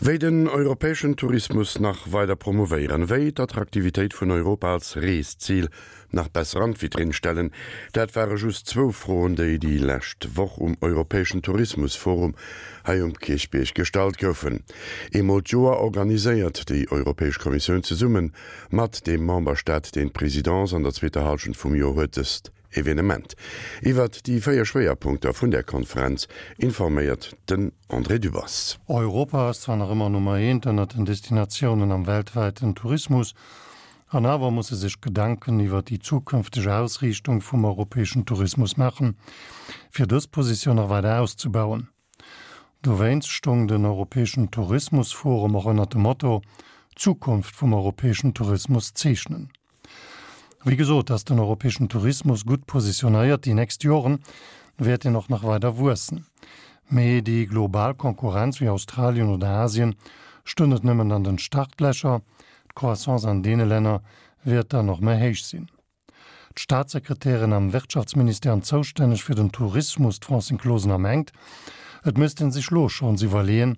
Wéi den europäeschen Tourismus nach weider promouvéieren, wéi d'Attraktivitéit vun Europa als Reeszil nach besser an d'Vitrinn stellen, dat ware just zwou Froen, déi déi lescht Woch um europäeschen Tourismusforum hei um Kierchbierg gestallt goufen. Eemol d'Joer organiséiert déi Europäesch Kommissioun zesumme mat deem Memberstaat, deen d'Presidence an der zweeter Hallschent vum Joer huet, dëst Evenement. Iwwert déi 4 Schwéierpunkter vun där Konferenz informéiert den André Dübbers. Europa ass zwar nach ëmmer Nummer eent ënnert den Destinatiounen am weltwäiten Tourismus, an awer muss e sech Gedanken iwwert déi zukünfteg Ausriichtung vum europäeschen Tourismus maachen, fir dës Positioun nach weider auszebauen. Dowéinst stoung den europäeschen Tourismusforum och ënnert dem Motto D'Zukunft vum europäeschen Tourismus zeechnen. Wéi gesot ass den europäeschen Tourismus gutt positionéiert, déi nächst Joren wäert en och nach weider wuessen. Mee déi global Konkurrenz wéi Australien oder Asien stoung net nëmmen an den Startlächer, d'Croissance an deene Länner wäert dann och méi héich sinn. D'Staatssekretärin am Wirtschaftsministère an zoustänneg fir den Tourismus, d'Francine Closener, mengt, et misst ee sech lo schonns iwwerleeën,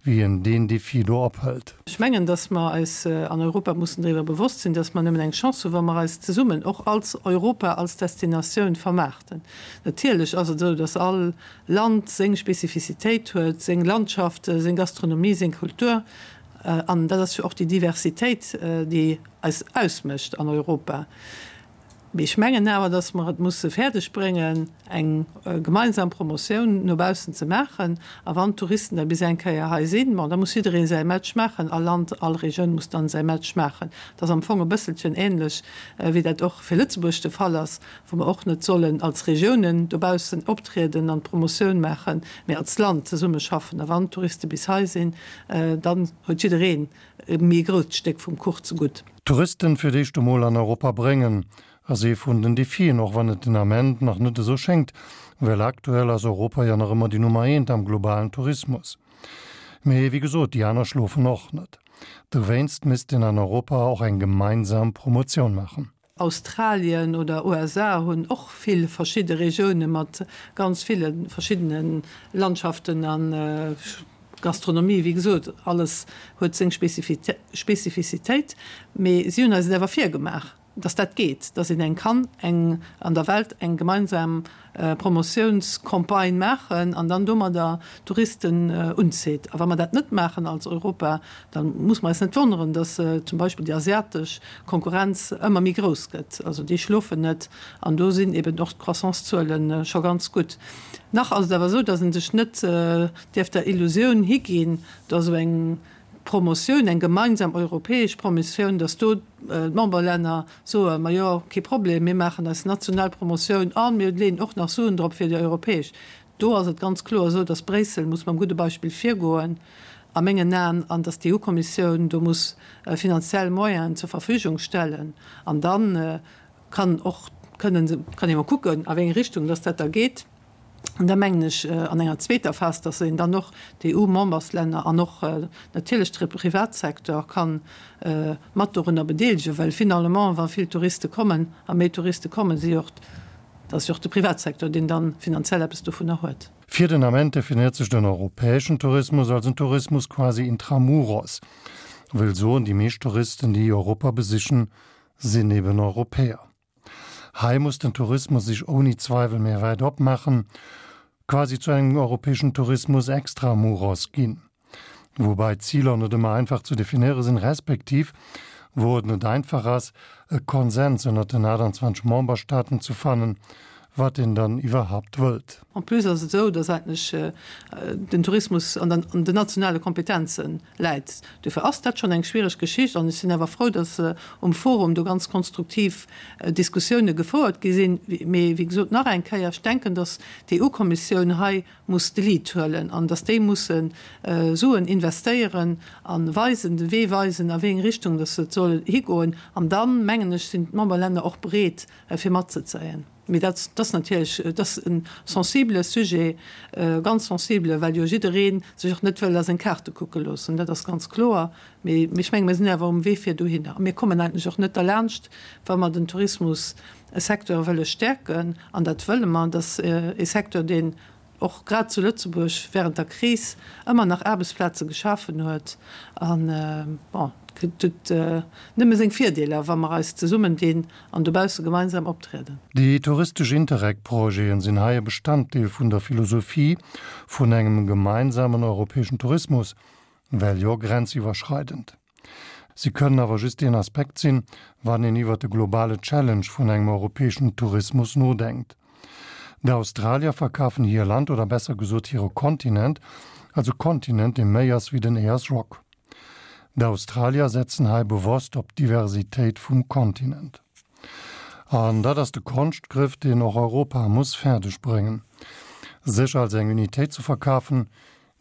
wéi een deen Defi do ophëlt. Ech mengen, datt mer eis an Europa mussen driwwer bewosst sinn, datt mer nëmmen eng Chance hunn, wa mer eis zesummen och als Europa, als Destinatioun vermaarten. Natierlech ass et esou, datt all Land seng Spezifizitéit huet, seng Landschaft, seng Gastronomie, seng Kultur. An dat ass jo och déi Diversitéit, déi eis ausmécht an Europa. Mee ech mengen awer, datt mer et musse fäerdeg bréngen, eng gemeinsam Promotioun no baussen ze maachen. A wann d'Touristen da bis eng Kéier hei sinn, bon, da muss jidderee säi Match maachen, all Land, all Regioun muss dann säi Match maachen. Dat ass am Fong e bësselchen ähnlech, wéi dat och fir Lëtzebuerg de Fall ass, wou mer och net sollen als Regiounen dobaussen optrieden an d'Promotioun maachen, mee als Land zesummeschaffen. A wann d'Touriste bis hei sinn, Dann huet jiddereen e méi grousst Stéck vum Kuch zegutt. Touristen fir d'éischt emol an Europa bréngen, ass ee vun den Defien, och wann et den Ament nach net esou schéngt, well aktuell ass Europa jo nach ëmmer déi Nummer eent am globalen Tourismus. Mee wéi gesot, déi aner schlofen och net. Dowéinst misst een an Europa och eng gemeinsam Promotioun maachen. Australien oder USA hunn och vill verschidde Regioune mat ganz ville verschiddene Landschaften a Gastronomie. Wéi gesot, alles huet seng Spezifizitéit, mee si hunn eis et awer virgemaach, datt dat geet, datt een eng kann eng an der Welt eng gemeinsam Promotiounscampagne maachen an dann domadder Touristen unzitt. A wa mer dat net maachen als Europa, da muss mer eis net wonneren, datt zum Beispill déi asiatesch Konkurrenz ëmmer méi grouss gëtt. Also déi schlofen net an do sinn eben och d'Croissancezuele scho ganz gutt. Nach ass et awer esou, datt ee sech net dierf der Illusioun higinn, datt esou eng Promotioun, eng gemeinsam europäesch Promotioun, datt do d'Memberlänner soen, majo, kee Problem, mir maachen eis national Promotioun a mir leeën och nach Suen drop fir déi europäesch. Do ass et ganz kloer esou, datt Bréissel muss mam gudde Beispill virgoen, a mengen Aen, an datt d'EU-Kommissioun do muss finanziell Moyenen zur Verfügung stellen. An da kann och, kënnen, kann ee mol kucken, a wéi eng Richtung datt dat da geet. An da mengen ech an enger zweeter Phas, dass een dann och d'EU-Memberslänner an och natierlech de Privatsecteur ka mat dorunner bedeelegen, well finalement, wa vill Touriste kommen a méi Touriste kommen, si och, dat ass jo och de Privatsecteur, deen da finanziell eppes dovunner huet. Fir den Ament definéiert sech den europäeschen Tourismus als en Tourismus quasi intramuros, wëll soen, déi meescht Touristen, déi Europa besichen, sinn eben Europäer. Hei muss den Tourismus sech ouni Zweiwel méi wäit opmaachen, quasi zu engem europäeschen Tourismus extra muros ginn. Woubäi d'Ziler net ëmmer einfach ze definéiere sinn, respektiv wou et net einfach ass, e Konsens ënnert den 28 Memberstaaten ze fannen, wat een dann iwwerhaupt wëllt. En plus ass et esou, dass eigentlech den Tourismus an den nationale Kompetenze läit. Dofir ass dat schonn eng schwiereg Geschicht an ech sinn awer frou, dass um Forum do ganz konstruktiv Diskussioune gefouert gi sinn. Mee wéi gesot, nach eng Kéier, ech denken, dass d'EU-Kommissioun hei muss de Lead huelen an dass déi musse Suen investéieren a weisen, de Wee weisen, a wéi eng Richtung dass et soll higoen. An dann, mengen ech, sinn d'Memberlänner och bereet, fir matzezéien. Mee dat ass natierlech, et ass e sensibele Sujet, ganz sensibele, well jo jidderee sech och net wëll a seng Kaarte kucke loossen, dat ass ganz kloer. Mee ech menge mir sinn awer um Wee fir dohinner. A mir kommen eigentlech och net derlaanscht, wa mer den Tourismussecteur wëlle stäerken, an dat wëlle mer, dat ass e Secteur, deen. och grad zu Lëtzebuerg während der Kris ëmmer nach Aarbechtsplaze geschafen huet. An, bon, et huet nëmme seng Virdeeler, wa mer eis zesummendinn an dobausse gemeinsam optrieden. Déi touristesch Interreg-Projeten sinn hei e Bestanddeel vun der Philosophie vun engem gemeinsamen europäeschen Tourismus, well jo grenziwwerschreidend. Si kënnen awer just een Aspekt sinn, wann een iwwert de globale Challenge vun engem europäeschen Tourismus nodenkt. D'Australier verkafen hir Land, oder besser gesot hire Kontinent, als e Kontinent, dee méi ass wéi den Ayers Rock. D'Australier setzen hei bewosst op d'Diversitéit vum Kontinent. An dat ass de Konschtgriff, deen och Europa muss fäerdeg bréngen, sech als eng Unitéit ze verkafen,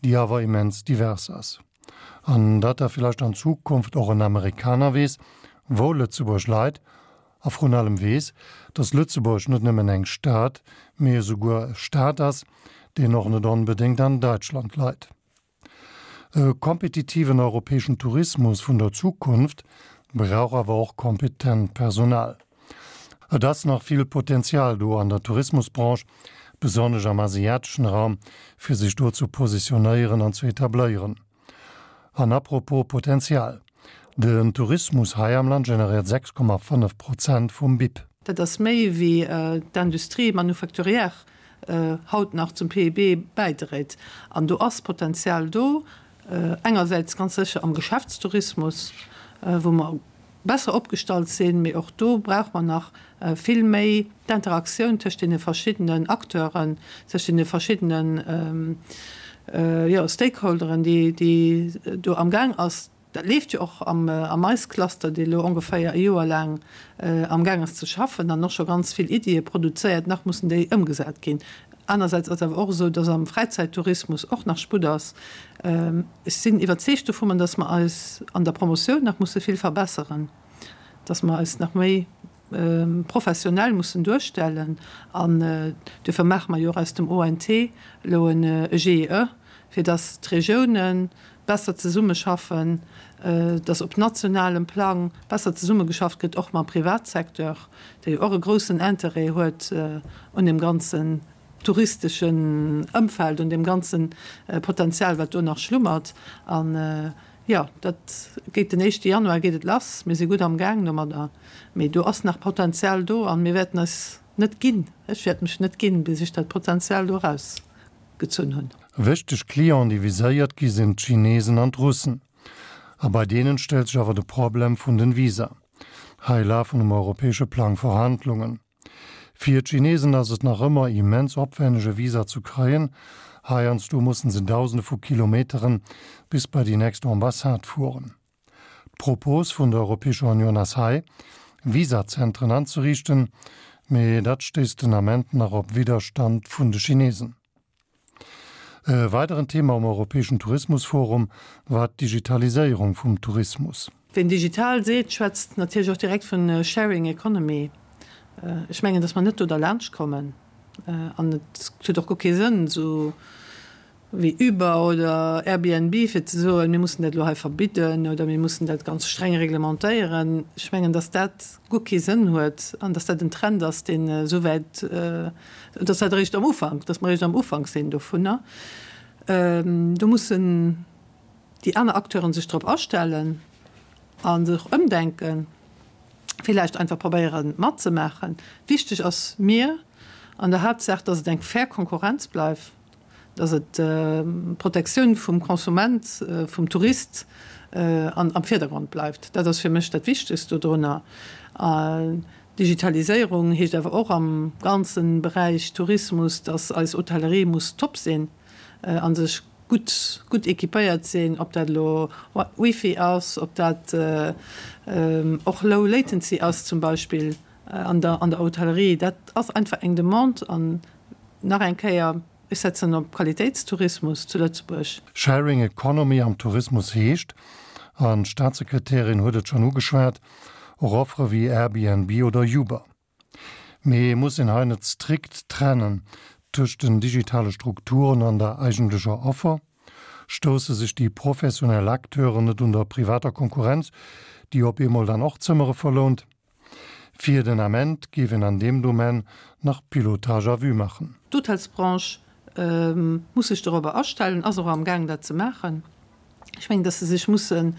déi awer immens divers ass. An datt da villäicht an Zukunft och en Amerikaner weess, wou Lëtzebuerg leit, a vrun allem weess, datt Lëtzebuerg net nëmmen eng Stad, mee esouguer e Staat ass, deen och net onbedéngt an Däitschland leit. E kompetitiven europäeschen Tourismus vun der Zukunft brauch awer och kompetent Personal. Et ass nach vill Potenzial do an der Tourismusbranche, besonnesch am asiateschen Raum, fir sech do ze positionéieren an ze etabléieren. An apropos Potenzial, Den Tourismus hei am Land generéiert 6,5 Prozent vum BIP. Dat ass méi wéi d'Industrie manufacturière haut nach zum PIB bäidréit. An do ass Potenzial do, engersäits ganz sécher am Geschäftstourismus, wou mer besser opgestallt sinn, mee och do brauche mer nach vill méi d'Interaktioun tëscht deene verschiddenen Acteuren, tëscht deene verschiddenen, jo, Stakeholderen, déi, déi do amgaang ass. Dat leeft jo och am MICE-Cluster, dee elo ongeféier e Joer laang amgaang ass ze schaffen an och scho ganz vill Iddie produzéiert. Nach mussen déi ëmgesat ginn. Anersäits ass awer och esou, dass am Fräizäittourismus och nach Sputt ass. Ech sinn iwwerzeegt dovunner, dass mer eis an der Promotioun nach musse vill verbesseren, dass mer eis nach méi professionell mussen duerstellen. An duerfir maache mer jo och aus dem ONT elo e GIE, fir dass d'Regiounen besser zesummeschaffen, dass op nationalem Plang besser zesummegeschafft gëtt, och mam Privatsecteur, dee jo och e groussen Interêt huet un deem ganzen touristeschen Ëmfeld, un deem ganze Potenzial, wat do nach schlummert. An, jo, dat geet den éischte Januar geet et lass. Mir si gutt amgaang domadder, mee do ass nach Potenzial do a mir wäerten eis net ginn, ech wäert mech net ginn, bis ech dat Potenzial do erausgezunn hunn. Wichteg Clienten, déi viséiert gi sinn d'Chinesen an d'Russen. A bei deenen stellt sech awer de Problem vun den Visa. Hei lafen um europäesche Plang Verhandlungen. Fir d'Chinesen ass et nach ëmmer immens opwenneg e Visa zu kréien, heiansdo mussen se dausende vu Kilometeren bis bei déi nächst Ambassade fueren. D'Propos vun der Europäescher Unioun ass hei, Visazentren anzeriichten, mee dat stéisst den Ament nach op Widderstand vun de Chinesen. E weideren Thema um Europäeschen Tourismusforum war d'Digitaliséierung vum Tourismus. Ween digital seet, schwätzt natierlech och direkt vun Sharing Economy. Ech mengen, datt mer net do derlaanscht kommen an et huet och guer kee Sënn, esou wéi Uber oder Airbnb, fir ze soen, mir mussen dat elo hei verbidden oder mir mussen dat ganz streng reglementéieren. Ech mengen, datt dat guer kee Sënn huet an datt dat en Trend ass, deen esou wäit, datt dat eréischt am Ufank, datt mer eréischt am Ufank sinn dovunner. Do mussen déi aner Acteuren sech drop astellen a sech ëmdenken, villäicht einfach probéieren matzemaachen. Wichteg ass mir an der Haaptsaach, datt et eng fair Konkurrenz bleift. dass et d'Protektioun vum Konsument, vum Tourist am Virdergrond bleift. Dat ass fir mech dat Wichtegst dodrunner. Digitaliséierung heescht awer och am ganze Beräich Tourismus, dass eis Hotellerie muss top sinn a sech gutt, gutt équipéiert sinn, ob dat elo Wifi ass, ob dat och Low Latency ass zum Beispill an der Hotellerie. Dat ass einfach eng Demande an Nach eng Kéier, ech setzen op Qualitéitstourismus zu Lëtzebuerg. Sharing Economy am Tourismus heescht, an d'Staatssekretärin huet et schonn ugeschwat, och Offere wéi Airbnb oder Uber. Mee muss een hei net strikt trennen tëscht den digitale Strukturen an der eigentlecher Offer? Stousse sech déi professionell Acteuren net un der privater Konkurrenz, déi op eemol dann och Zëmmere verlount? Fir den Ament géif een an deem Domaine nach Pilotage à vue maachen. D'Hotelsbranche. muss sech dorobber astellen, ass och amgaang dat ze maachen. Ech mengen, dass se sech mussen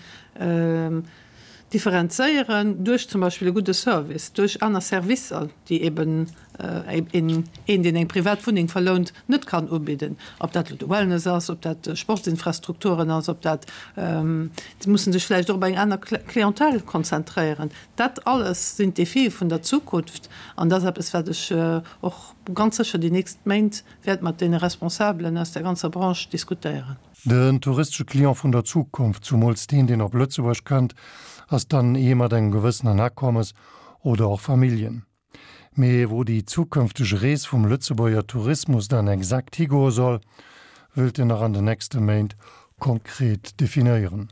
differenzéieren duerch zum Beispill e gudde Service, duerch aner Servicer, déi eben een, deen eng privat Wunneng verlount, net kann ubidden. Ob dat elo de Wellness ass, ob dat Sportsinfrastrukturen ass, ob dat, se mussen sech vläicht och op eng aner Clientèle konzentréieren. Dat alles sinn d'Defie vun der Zukunft an dat ass eppes, wat ech och ganz sécher déi nächst Méint wäert mat deene Responsabelen aus der ganzer Branche diskutéieren. Den touristesche Client vun der Zukunft, zumools deen, deen op Lëtzebuerg kënnt, ass dann ee mat engem gewëssenen Akommes oder och Familljen. Mee wou déi zukënfteg Rees vum Lëtzebuerger Tourismus dann exakt higoe soll, wëllt en nach an den nächste Méint konkret definéieren.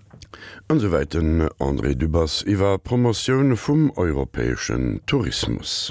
An esouwäit den André Dübbers iwwer Promotioun vum europäeschen Tourismus.